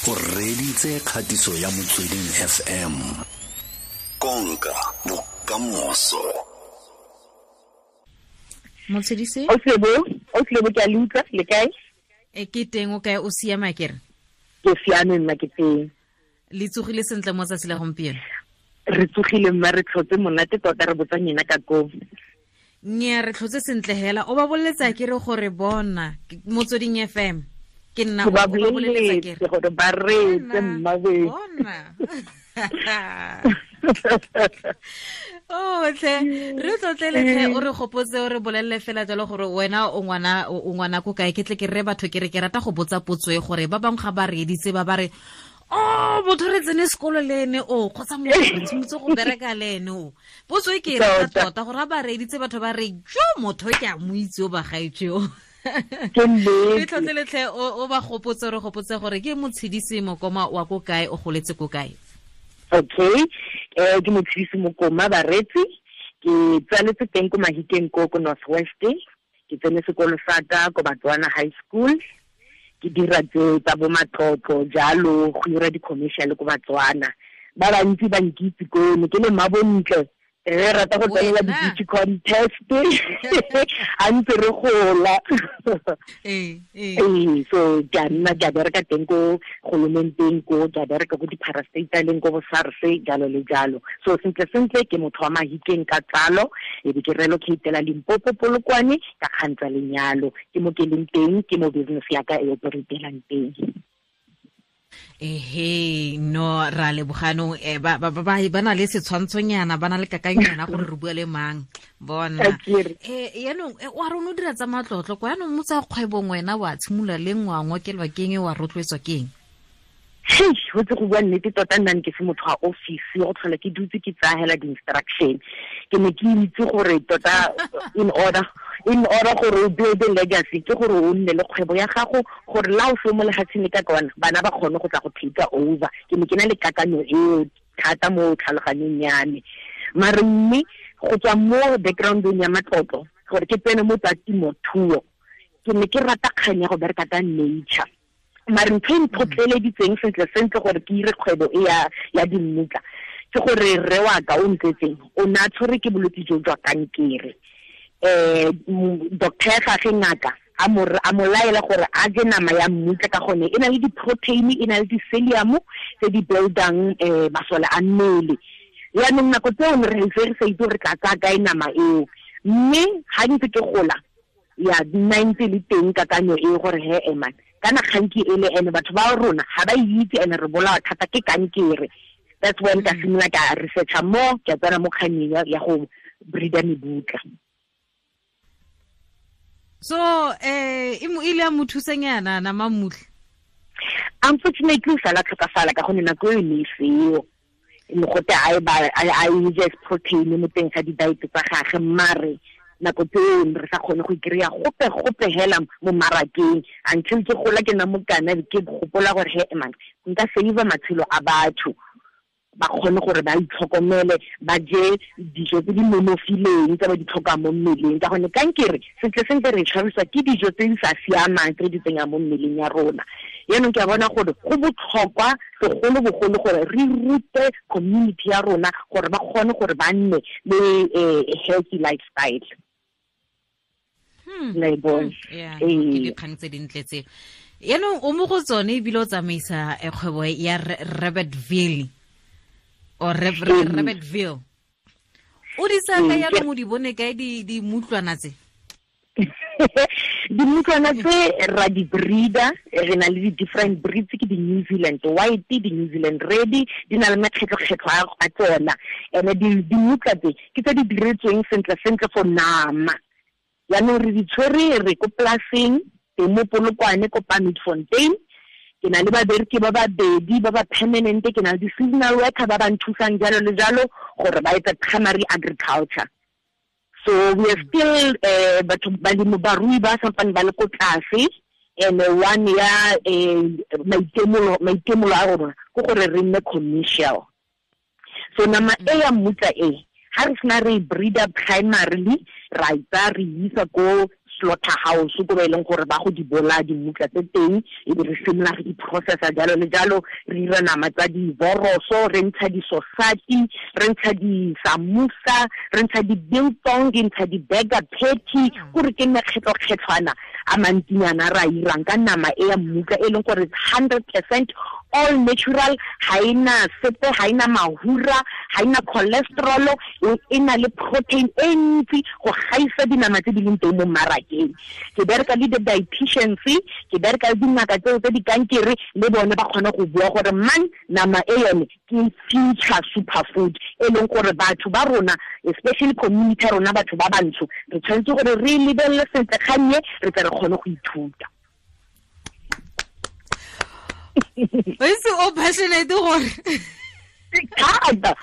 O reditse kgatiso ya Motsweding FM. Konka bokamoso. Motshedise? O tlebo ke a le utlwa, le kae? E ke teng, o kae, o siama kere? Ke siame nna, ke teng. Le tsogile sentle mo tsatsi la gompieno? Re tsogile mma, re tlhotse monate tota, re botsa nyena ka koo. Nnyaa, re tlhotse sentle hela. O ba boleletsa ke re gore bona Motsweding FM. Ke nna o ba boleletsa ke re gore ba reetse mma we. Bona. Oh, tle re tlotlele o re gopotse, o re bolelele fela jalo gore wena o ngwana ko kae. Ke tle ke re batho ke re ke rata go botsa potso e gore ba bangwe ga ba reeditse ba ba re oh, motho re tsene sekolo le ene o kgotsa motho re tshimotse go bereka le ene o. Potso e ke e rata tota gore ga ba reeditse batho ba re jo motho ke a mo itse o bagaetsho. Re tlotleletlhe o ba gopotse, re gopotse gore ke Motshedisi Mokoma wa ko kae, o goletse ko kae. Okay, ke Motshedisi Mokoma baretsi, ke tsaletse teng ko Mahikeng ko ko North West. Ke tsene sekolo sa ka ko Batswana High School. Ke dira tse tsa bo matlotlo jalo, go dira di-commercial ko Batswana. Ba bantsi ba nkitse ko ne ke le mmabontle, re rata go tsenela di-beauty contest a ntse re gola. Ee, so ke a nna ke a bereka teng ko golomenteng ko, ke a bereka ko di-parastataleng ko bo SARS jalo le jalo. So sentle sentle ke motho wa Mahikeng ka tsalo, e be ke relocatela Limpopo Polokwane ka kgang tsa lenyalo. Ke mo ke leng teng, ke mo business ya ka e operatelang teng. Ehe, no ra leboganong ba ba ba na le setshwantshonyana, ba na le kakanyana gore re bua le mang bona. Yaanong wa rona o dira tsa matlotlo kwa, yaanong mo tsa kgwebong wena wa tshimolola le ngwangwa kelwa keng, wa rotloetswa keng? Hei, go tse go bua nnete tota, nna ke se motho wa office, go tlhola ke dutse ke tsaya hela di-instruction. Ke ne ke itse gore tota in order gore o build a legacy ke gore o nne le kgwebo ya gago, gore la o se mo lefatsheng le ka kwana bana ba kgone go tla go take over. Ke ne ke na le kakanyo eo thata mo tlhaloganyong ya me. Mare mme go tswa mo backgroundong ya matlotlo gore ke tsene mo tsa temothuo, ke ne ke rata kgang ya go bereka ka nature. Mare ntho e ntlhotlheleditseng sentle sentle gore ke ire kgwebo e ya dimmutla ke gore rre wa ka o ntsetseng o ne a tshwere ke bolwetse jo jwa kankere. Doctor ya gagwe ngaka a mo laela gore a je nama ya mmutla ka gone e na le di-protein, e na le di-celium tse di buildang masole a mmele. Yaanong nako tseo ne re ntse re sa itse gore re tla tsaya kae nama eo, mme ga ntse ke gola ya nna ntse le teng kakanyo e gore he eman kana kganki e le ene batho ba rona ga ba itse ene re bolawa thata ke kankere. That's when ka simolola ka researcha mo, ke tsena mo kganyeng ya go breeda mebutla. So e ile ya mo thusanyana nama mmutla? Unfortunately o sala tlhokafala ka gonne nako eo ne e seo. Mogote a e je protein mo teng ga di-diet tsa gagwe, mare nako tseo re sa kgone go ikry-a gope hela mo marakeng until ke gola ke nna mokana ke gopola gore he man nka save matshelo a batho, ba kgone gore ba itlhokomele, ba je dijo tse di nonofileng tse ba di tlhokang mo mmeleng, ka gonne kankere sentle sentle re tshwarisiwa ke dijo tse di sa siamang tse di tsenyang mo mmeleng ya rona. Yaanong ke a bona gore go botlhokwa segolobogolo gore re rute community ya rona gore ba kgone gore ba nne le healthy lifestyle. Ke dikgang tse dintle tse. Yaanong o mo go tsone ebile o tsamaisa kgwebo ya Rabbitville or Rabbitville. O di tsaya kae yaanong, o di bone kae dimutlwana tse? Dimutlwana tse ra di breeder, re na le di-different breeds, ke di-New Zealand White, di-New Zealand Red, di na le makgetlho-kgetlho a tsona. And dimutla tse ke tse di diretsweng sentle sentle for nama. Yaanong re di tshwere re ko polaseng teng mo Polokwane ko Palmietfontein. Ke na le babereki ba babedi ba ba permanent, ke na le di-seasonal worker ba ba nthusang jalo le jalo gore ba etse primary agriculture. So we are still batho balemi barui ba sampane ba le ko tlase, and one ya maitemolo a rona ke gore re nne commercial. So nama e ya mmutla e ha re sena re breeder primarily, ra itsa re isa ko di-slaughter house ko ba e leng gore ba go di bolaya dimutla tse teng, e be re simolola re di-processa jalo le jalo, re dira nama tsa diboroso, re ntsha di-sosati, re ntsha di-samosa, re ntsha di-biltong, re ntsha di-burger patty, kore ke mekgetlokgetlhwana a mantsinyana re a irang ka nama e ya mmutla e leng gore 100% all natural, ha ena sepe, ha ena mahura, ha ena cholesterol, e na le protein e ntsi go gaisa dinama tse di leng teng mo mmarakeng. Ke bereka le di-dietitians, ke bereka le dingaka tseo tse di kankere, le bone ba kgone go bua gore man nama e yone ke future superfood e leng gore batho ba rona, especially community ya rona, batho ba bantsho, re tshwanetse gore re lebelele sentle kgannye, re tle re kgone go ithuta. O itse o passionate gore thata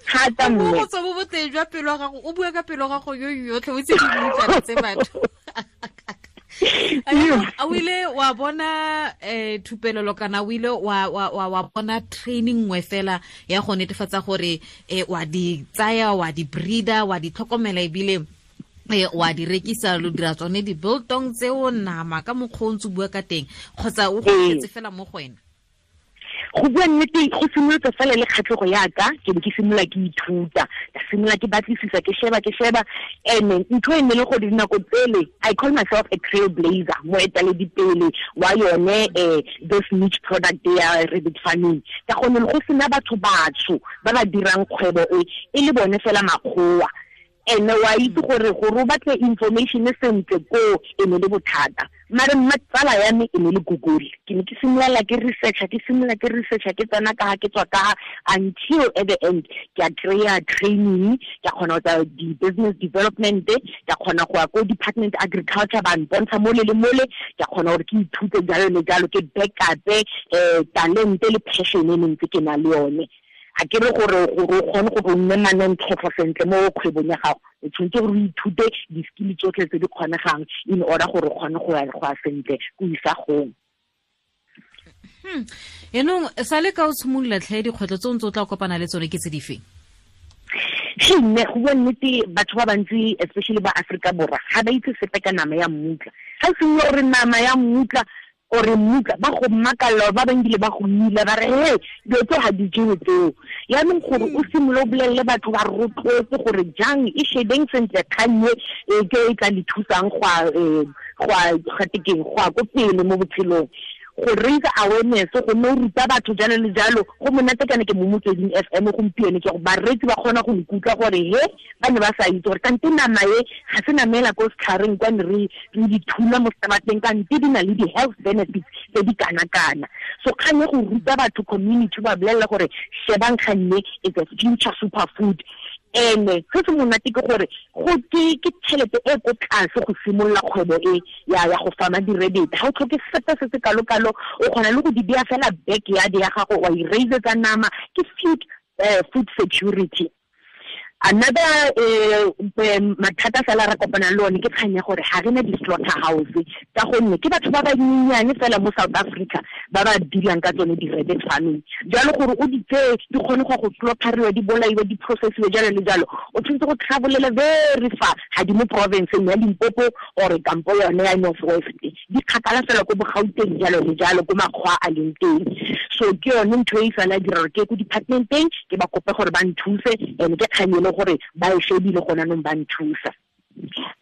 thata mme go tswa bo boteng jwa pelo ya gago, o bua ka pelo ya gago yo yotlhe, o itse di tse batho. A o ile wa bona thupelelo kana o ile wa bona training nngwe fela ya go netefatsa gore wa di tsaya, wa di breeder, wa di tlhokomela ebile wa di rekisa, lo dira tsone di-biltong tseo nama ka mokgwa o ntse o bua ka teng, kgotsa o go fela mo go wena? Go bua nnete, go simolotse fela le kgatlhego yaka, ke be ke simolola ke ithuta, ka simolola ke batlisisa, ke sheba, and ntho e ne le gore dinako tsele, I call myself a trailblazer, moeteledipele wa yone this niche product ya rabbit farming, ka gonne go sena batho batsho ba ba dirang kgwebo e, e le bone fela makgowa. Ene wa itse gore o batle information sentle ko e ne le bothata, mare mma tsala ya me e ne le Google. Ke ne ke simolola ke researcha, ke simolola ke researcha, ke tsena ka ke tswa ka, until at the end ke a kry-a training, ke a kgona go tsa di-business development, ke a kgona go ya ko department agriculture, ba mpontsha mole le mole, ke a kgona gore ke ithute jalo le jalo, ke backupe talente le passion e ne ntse ke na le yone. A ke re gore o kgone gore o nne manontlhotlho sentle mo kgwebong ya gago, o tshwanetse gore o ithute di-skill tsotlhe tse di kgonegang in order gore o kgone go ya sentle ko isagong. Yaanong sa le ka o tshimolola tlhe, dikgwetlho tse o ntse o tla kopana le tsone ke tse di feng? Mme go bua nnete, batho ba bantsi, especially ba Afrika Borwa, ga ba itse sepe ka nama ya mmutla. Ga o simolola gore nama ya mmutla ore mmutla, ba go makalla, ba bangwe ba go mila, ba re he dilo tse ga di jewe tseo. Yaanong gore o simolole o bolelele batho, ba rotloetse gore jang e shebeng sentle kgannye e ke e tla le thusang go ya ko pele mo botshelong, go raise awareness, go nne o ruta batho jalo le jalo. Go monate kana ke mo Motsweding FM gompieno, ke gore bareetsi ba kgona go nkutlwa gore he ba ne ba sa itse gore kante nama e ga se namela ko setlhareng kwa ne re di thula mo seterateng, kante di na le di-health benefits tse di kana-kana. So kgang e go ruta batho, community, ba bolelela gore shebang kganne is a future superfood. Ene se se monate ke gore go ke tšhelete e ko tlase go simolola kgwebo e ya go fama di-rabbit. Ga o tlhoke sepe se se kalo-kalo, o kgona le go di beya fela backyard ya gago, wa i-raisetsa nama, ke food security. Another mathata fela re kopanang le one ke kgang ya gore ga re na di-slaughter house, ka gonne ke batho ba banyenyane fela mo South Africa ba ba dealang ka tsone di-rabbit farming. Jalo gore o di tseye di kgone go slaughteriwa, di bolaiwe, di processiwe jalo le jalo, o tshwanetse go travelele very far, ga di mo provinceng ya Limpopo or kampo yone ya North West, di kgakala fela ko Bogauteng jalo le jalo, ko makgwa a leng teng. So ke yone ntho e fela dira gore ke ko departmenteng ke ba kope gore ba nthuse, and ke kgang e le gore ba e shebile gona nong ba nthusa.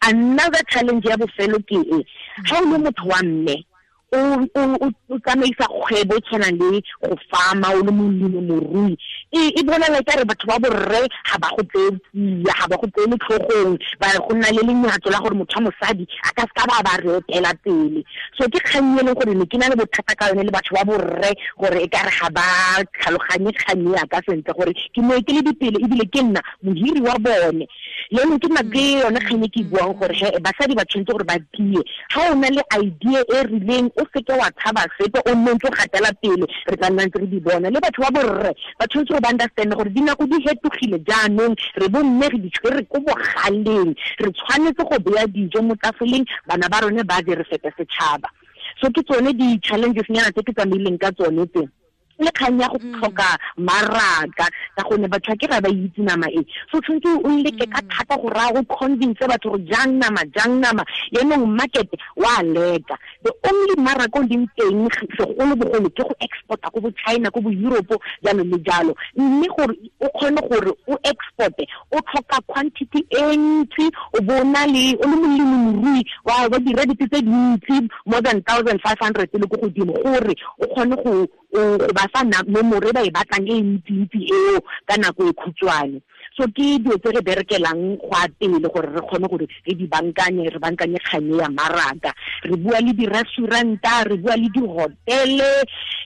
Another challenge ya bofelo ke e, ga o le motho wa mme o tsamaisa kgwebo e tshwanang le go farma, o le molemi morui, e bonala ka re batho ba borre ga ba go tseye tsia, ga ba go tseye tlhogong, ba go nna le lenyatso la gore motho wa mosadi a ka seka ba re etela pele. So ke kgang e leng gore ne ke na le bothata ka yone le batho ba borre, gore e ka re ga ba tlhaloganye kgang ya ka sentle gore ke moeteledipele ebile ke nna mohiri wa bone. Le ke nna ke yone kgang e ke buang gore he basadi ba tshwanetse gore ba tie. Ga o na le idea e rileng, o seke wa tshaba sepe, o nne ntse o gatela pele, re tla nna ntse re di bona. Le batho ba borre ba tshwanetse gore ba understand gore dinako di hetogile jaanong, re bomme re di tshwere ko bogaleng, re tshwanetse go beya dijo mo tafoleng, bana ba rone ba je, re fete setšhaba. So ke tsone di-challenges nyana tse ke tsamaileng ka tsone tse. Le kgang ya go tlhoka maraka ka gonne batho ke ga ba itse nama e, so tshwanetse o leke ka thata go raya go convince batho gore jang nama, jang nama. Yaanong market wa leka, the only maraka o leng teng segolobogolo ke go exporta ko bo China, ko bo Europe, jalo le jalo. Mme gore o kgone gore o exporte, o tlhoka quantity e ntsi, o bo na le o le molemirui wa di-rabbit tse dintsi, more than 1500 le ko godimo, gore o kgone go ba fa nomoro e ba e batlang e ntsi-ntsi eo ka nako e khutshwane. So ke dilo tse re berekelang go a pele gore re kgone gore re di bankanye, re bankanye kganye ya maraka. Re bua le di-restauranta, re bua le di-hotele,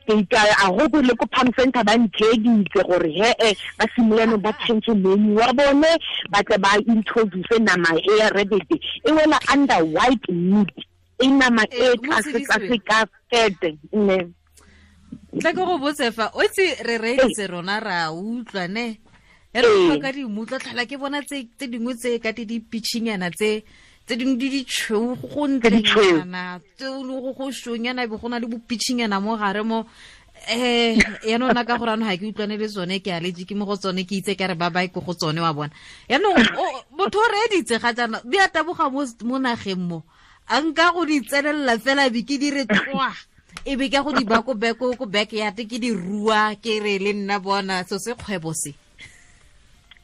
a go le ko Palm Center ba ntheeditse gore he-e ba simolano ba change menu wa bone, ba tle ba introduce nama e ya rabbit e wela under white meat, e nama e tlase ka fete ne. Tla ke go botse fa o itse re reeditse rona ra utlwa ne e re utlwa ka dimutla, tlhola ke bona tse dingwe tse ka di pitchinyana tse dingwe di ditšhweu go ntlenyana, tse go shonyana be go na le bopitchinyana mo gare mo. Yaanong nna ka gore anong ga ke utlwane le tsone, ke allergic mo go tsone, ke itse ka re ba bae ko go tsone wa bona. Yaanong motho o reeditse ga jaana di a taboga mo nageng mo, a nka go di tsenelela fela be ke dire tloa, e be ka go di ba ko backyard ke di rua, ke re le nna bona so se kgwebo se.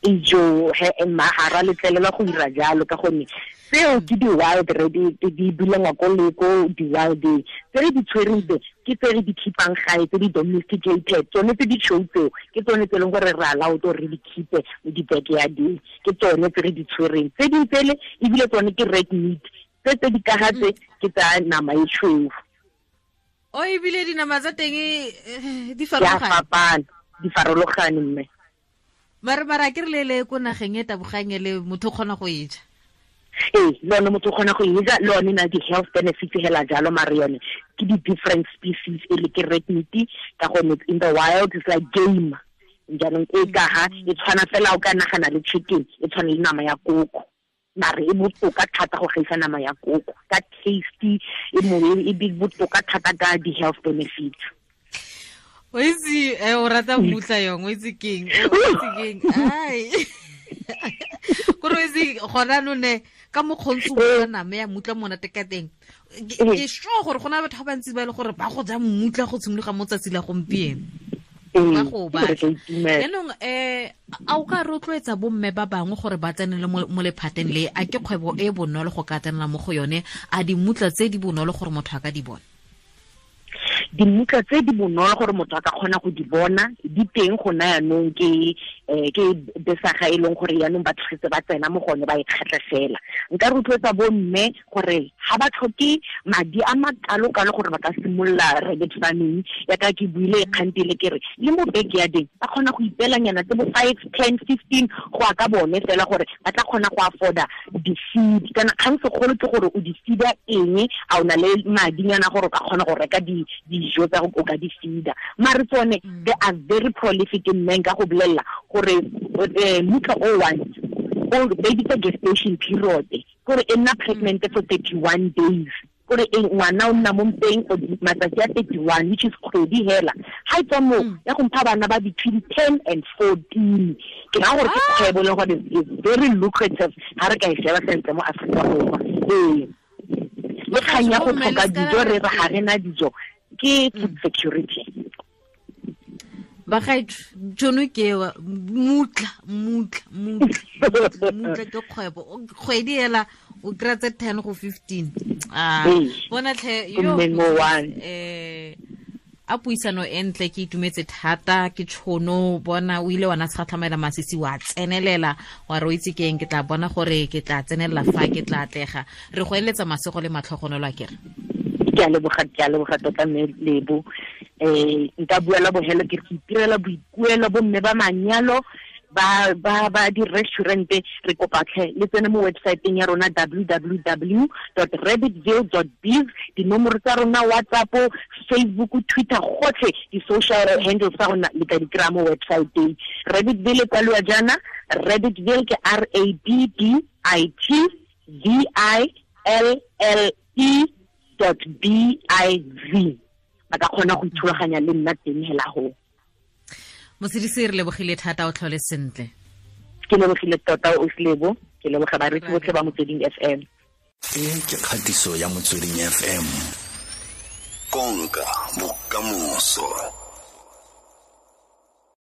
Ijo he mma ga ra letlelela go dira jalo ka gonne seo ke di-wild rabbit, di bulengwa ko le ko di-wild tse re di tshwereng tse ke tse re di keepang gae, tse di domesticated, tsone tse di tšhweu tseo ke tsone tse e leng gore re allowed gore re di keepe mo di-backyardeng, ke tsone tse re di tshwereng. Tse dingwe tsele ebile tsone ke red meat, tse di kaga tse ke tsa nama e tšhweu. O ebile dinama tsa teng di farologane, di farologane mme. Mara ke re le ko nageng e tabogang le motho o kgona go e ja. Ee, le yone motho o kgona go e ja, le yone na di-health benefits hela jalo, mare yone ke di-different species e le ke red meat ka gonne in the wild it's like game. Jaanong e ka ga e tshwana fela o ka nagana le chicken, e tshwana le nama ya koko, mare e botoka thata go gaisa nama ya koko ka tasty, e botoka thata ka di-health benefits. O itse o rata mmutla yong, o itse keng, o itse keng, ai kore o itse gona none ka mokgontsi o nama ya mmutla monate ka teng. Ke sure gore gona batho ba bantsi ba e le gore ba go ja mmutla go tshimologa mo tsatsi la gompieno, ba go batla. Yaanong a o ka rotloetsa bomme ba bangwe gore ba tsenele mo lephateng le, a ke kgwebo e bonolo go ka tsenela mo go yone, a dimmutla tse di bonolo gore motho a ka di bona? Dimmutla tse di bonolo gore motho a ka kgona go di bona di teng gona yaanong, ke besaga e leng gore yaanong batho setse ba tsena mo gone ba e kgatlha fela. Nka rotloetsa bomme gore ga ba tlhoke madi a makalo-kalo gore ba ka simolola rabbit farming, yaka ke buile kgantele ke re le mo backyardeng ba kgona go ipeelanyana tse bo 5, 10, 15 go ya ka bone fela gore ba tla kgona go afforda di-feed. Kana kgang segolo ke gore o di feeda eng, a o na le madinyana gore o ka kgona go reka dijo tsa o ka di feeda. Mare tsone they are very prolific in men, ka go bolelela gore mutla o one o baby tsa gestation period gore e nna pregnant for 31 days, gore ngwana o nna mo mpeng for matsatsi a 31, which is kgwedi hela. Ha e tswa mo ya go mpha bana ba between 10 and 14. Ke ra gore ke kgwebo le gore is very lucrative ha re ka e sheba sentle mo Afrika Borwa. Ee, le kgang ya go tlhoka dijo, re re ga re na dijo, ke food security. Bagaetsho, tšhono ke ewa, mmutla ke kgwebo. Kgwedi hela o kry-a tse 10 go 15. Bona tlhe yo a puisano e ntle, ke itumetse thata ke tšhono bona o ile wa na tshatlhamela masisi wa tsenelela wa re o itse keng, ke tla bona gore ke tla tsenelela fa ke tla atlega. Re go eletsa masego le matlhogonolo a kere. Ke a leboga tota mme Lebo. Nka bua la bohelo ke re itirela boikuelo bomme ba manyalo ba di-restaurant, re kopa tlhe le tsene mo websiteng ya rona www.rabbitville.biz, dinomoro tsa rona WhatsApp, Facebook, Twitter, gotlhe di-social handles tsa rona le ka di kry-a mo websiteng. Rabbitville e kwaliwa jaana, Rabbitville ke RABBITVILLE .biz. Ba ka kgona go ithulaganya le nna teng hela go. Motshedisi, re lebogile thata, o tlhole sentle. Ke lebogile tota, o Lebo. Ke leboga bareetsi botlhe ba Motsweding FM. E ke kgatiso ya Motsweding FM, konka bokamoso.